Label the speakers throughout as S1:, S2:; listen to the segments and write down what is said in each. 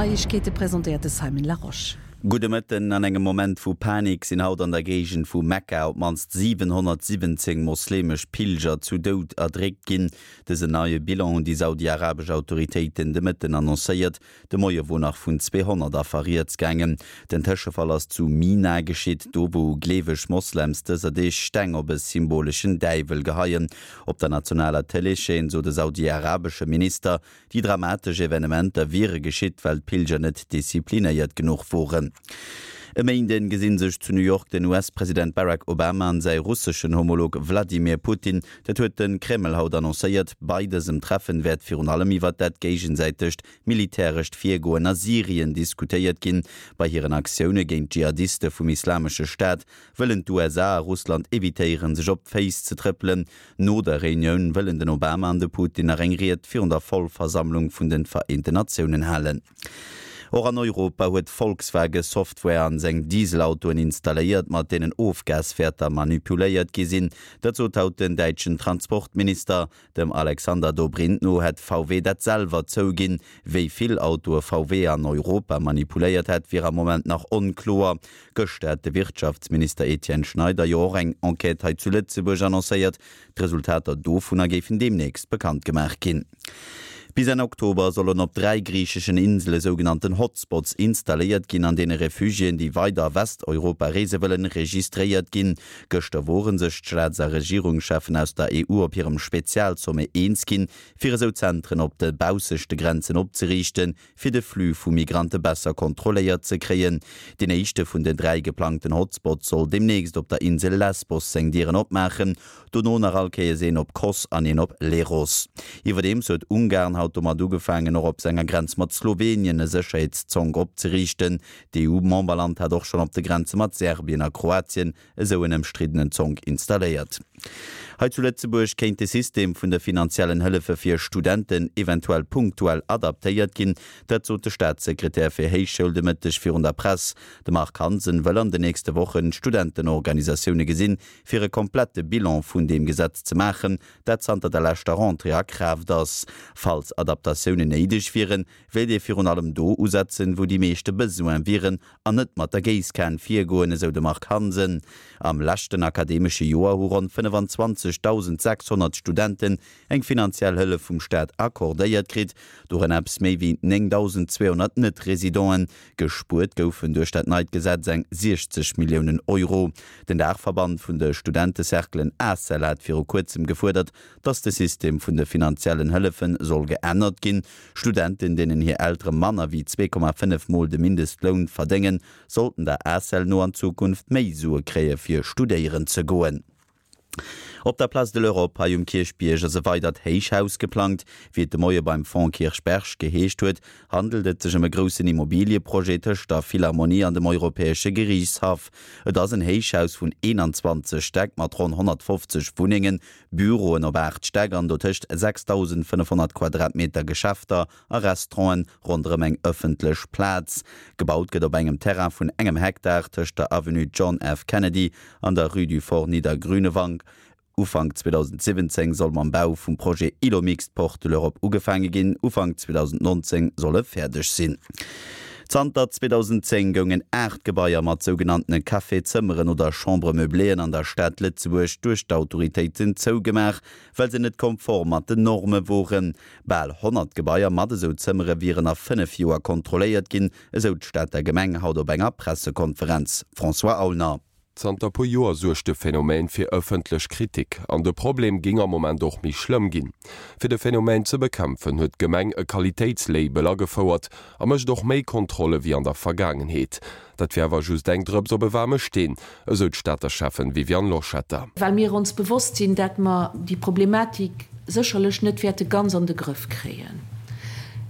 S1: Neiegkeete presentéiert de Simon Larosche.
S2: Gudde Mëtten. An engem Moment vu Panik sinn haut an der Géigend vu Mekka op d'mannst 717 mosleemesch Pilger zu Doud erdréckt ginn. Dësen neie Bilan hunn déi saudi-arabesch Autoritéiten de Mëtten annoncéiert. De Moie wor nach vun 200 Affer rieds gaangen. Den Tëschefall ass zu Mina geschitt, do wou gleeweg Moslems dëser Deeg Steng op e symboleschen Däiwel geheien. Op der nationaler Tëleeschaîne sot e saudi-arabesche Minister, déi dramatesch Evenementer wiere geschitt, well d'Pilger net disziplinéiert genuch woren. E Méinden gesinn sech zu New York den US-President Barack Obama an säi russeschen Homolog Wladimir Putin. Dat huet de Kreml haut annoncéiert. Bei dësem Treffen wäert virun allem iwwert dat géigesäitegt militärescht Virgoen a Syrien diskutéiert ginn. Bei hiren Aktioune géint d'Dschihadiste vum Islamesche Staat wëllen d'USA a Russland evitéieren, sech op d'Féiss ze trëppelen. No der Reunioun wëllen den Obama an de Putin nach eng Ried virun der Vollversammlung vun de Vereenten Natiounen halen. Och an Europa huet Volkswage Software an seng Dieselautoen installéiert, mat deenen Ofgaswäerter manipuléiert gi sinn. Dat sot haut den däitschen Transportminister. Dem Alexander Dobrindt no hätt VW dat selwer zouginn. Wéi vill Autoe VW an Europa manipuléiert hätt, wier am Moment nach onkloer. Gëschter hat de Wirtschaftsminister Etienne Schneider jo och eng Enquête hei zu Lëtzebuerg annoncéiert. D'Resultater dovunner géifen deemnächst bekannt gemaach ginn. Bis Enn Oktober sollen op 3 griicheschen Insele sougenannten Hotspots installéiert ginn, an deene Refugiéen, déi weider a Westeuropa reese wëllen, registréiert ginn. Gëschter wore sech d'Staats a Regierungscheffen aus der EU op hirem Spezialsommet eens ginn, fir esou Zentren op de baussechte Grenzen opzeriichten, fir de Flux vu Migrante besser kontrolléiert ze kréien. Deen éischte vun den 3 geplangten Hotspots soll deemnächst op der Insel Lesbos seng Dieren opmaachen. Dono nach all Kéiers een op Kos an een op Leros. Iwwerdeems huet Ungarn haut domat ugefaangen, och op senger Grenz mat Slowenien e Sécherheetszonk opzeriichten. D'EU-Memberland hat och schonn op de Grenze mat Serbien a Kroatien esou en ëmstriddenen Zonk installéiert. Hei zu Lëtzebuerg kéint de System vun de finanziellen Hëllefe fir Studenten eventuell punktuell adaptéiert ginn. Dat sot de Staatssekretär fir Héichschoul de Mëtteg virun der Press. De Marc Hansen wëll an den nächste Wochen d'Studentenorganisatioune gesinn, fir e komplette Bilan vun deem Gesetz ze maachen, dat zanter der leschter Rentrée a Kraaft ass. Falls Adaptatiounen néideg wieren, wéilt ee virun allem do usetzen, wou déi meeschte Besoin wieren an net mat der Géisskan virgoen, esou de Marc Hansen. Am leschten akademesche Joer hu ronn 25.600 Studenten eng finanziell Hëllef vum Staat accordéiert kritt, dorënner eppes méi wéi 9.200 Net-Residenten. Gespuert goufen duerch dat neit Gesetz eng 60 Milliounen Euro. Den Daachverband vun de Studentecerclen ACEL hat viru kuerzem gefuerdert, datt de System vun de finanziellen Hëllefe soll geännert ginn. Studenten, deenen hir Eltere manner wéi 2,5 mol de Mindestloun verdéngen, sollten der ACEL no an Zukunft méi Sue kréie fir studéieren ze goen. Op der Place de l'Europe hei um Kierchbierg ass e weidert Héichhaus geplangt. Wéi et de Moie beim Fonds Kirchberg geheescht huet, handelt et sech ëm e groussen Immobilieprojet tëscht der Philharmonie an dem Europäesche Geriichtshaff. Et ass en Héichhaus vun 21 Stäck mat ronn 150 Wunnengen, Büroen op 8 Stäck an dotëscht 6.500 Quadratmeter Geschäfter a Restauranten ronderëm eng ëffentlech Plaz. Gebaut gëtt op engem Terrain vun engem Hektar tëscht der Avenue John F. Kennedy an der Rue du Fort Niedergrünewang. Ufank 2017 soll mam Bau vum Projet Îlot mixte Porte de l'Europe ugefaange ginn, Ufank 2019 soll e fäerdeg sinn. Zanter 2010 goungen 8 Gebaier mat sougenanntene Café-Zëmmeren oder Chambre-meubléeën an der Stad Lëtzebuerg duerch d'Autoritéiten zougemaach, well se net konform mat den Norme woren. Bal 100 Gebaier mat esou Zëmmere wieren a 5 Joer kontrolléiert ginn, esou d'Stater Gemeng haut op enger Pressekonferenz. François Aulner.
S3: Zanter puer Joer suergt de Phänomen fir ëffentlech Kritik an de Problem géing am Moment och méi schlëmm ginn. Fir de Phänomen ze bekämpfen, huet d'Gemeng e Qualitéitslabel agefouert a mécht och méi Kontrolle wéi an der Vergaangenheet. Dat wier awer just eng Drëps op e waarme Steen, esou d'Stater Schäffen Viviane Loschetter.
S4: Well mir ons bewosst sinn, dat mer déi Problematik sécherlech net wäerte ganz an de Grëff kréien.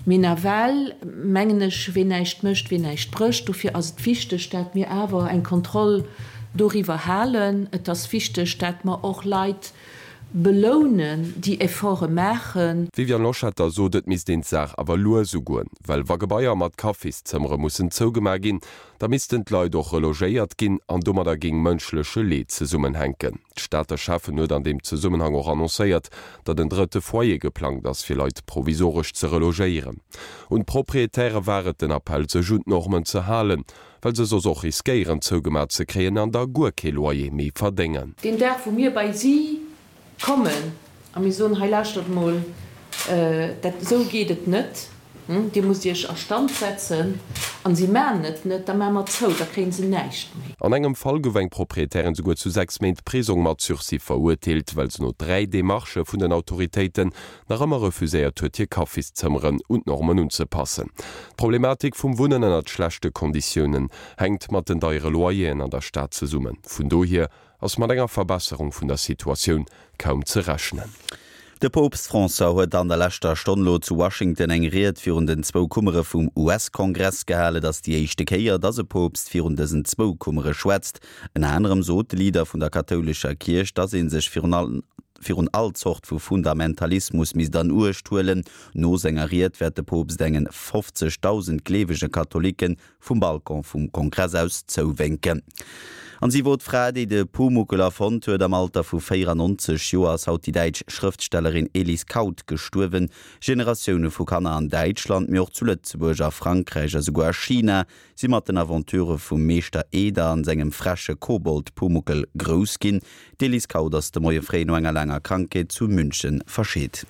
S4: Mee nawell mengen ech, ween näischt mécht, ween näischt brécht. Dofir ass et wichteg, dat mir awer eng Kontroll doriwwer halen. Et ass wichteg, dat mer och Leit. Belounen, déi Efforte maachen.
S3: D'Viviane Loschetter sot, et misst een d'Saach awer lues ugoen, well wa Gebaier mat Kaffiszëmmere mussen zougemaach ginn, da missten d'Leit och relogéiert ginn an domadder géing mënschleche Leed zesummenhänken. D'Stater Schäffen huet an deem Zesummenhang och annoncéiert, datt en drëtte Foyer geplangt ass, fir Leit provisoresch ze relogéieren. Un d'Proprietäre war et den Appell, sech un d'Normen ze halen, well se soss och riskéieren zougemaach ze kréien an da guer kee Loyer méi verdéngen.
S4: Deen Dag wou mir bei si kommen a mir soen, hei lauschtert mol, dat esou geet et net, dir musst iech a Stand setzen, an si maachen et net, da maache mer zou, da kréie se näischt méi.
S3: An engem Fall gouf eng Proprietärin souguer zu 6 Méint Prisong mat Sursis verurteelt, well se no 3 Demarchë vun den Autoritéiten nach ëmmer refuséiert huet, hir Kaffiszëmmeren un d'Normen unzepassen. D'Problematik vum Wunnen ënnert schlechte Konditiounen hänkt mat den deiere Loyeren an der Stad zesummen. Vun dohier ass mat enger Verbesserung vun der Situatioun kaum ze rechnen.
S2: De Poopst François huet an der leschter Stonn lo zu Washington eng Ried virun den zwou Kummere vum US-Kongress gehalen. Et ass déi éischte Kéier, datt e Poopst virun dësen zwou Kummere schwätzt. Ënner anerem sot de Leader vun der kathoulescher Kierch, datt ee sech virun virun all Zort vu Fundamentalismus misst an Uecht huelen. No senger Ried wäert de Poopst engen 50.000 gleewege Katholicken vum Balcon vum Kongress aus zouwénken. An si wor d'Fra, déi de Pumuckl erfonnt huet. Am Alter vu 94 Joer ass haut déi däitsch Schrëftstellerin Elise Kauth gestuerwen. Generatioune vu Kanner an Däitschland, mee och zu Lëtzebuerg, a Frankräich a souguer a China si mat den Aventurë vum Meeschter Eder an sengem freche Kobold Pumuckl grouss ginn. D'Elise Kauth ass de Moie fréi no enger laanger Krankheet zu München verscheet.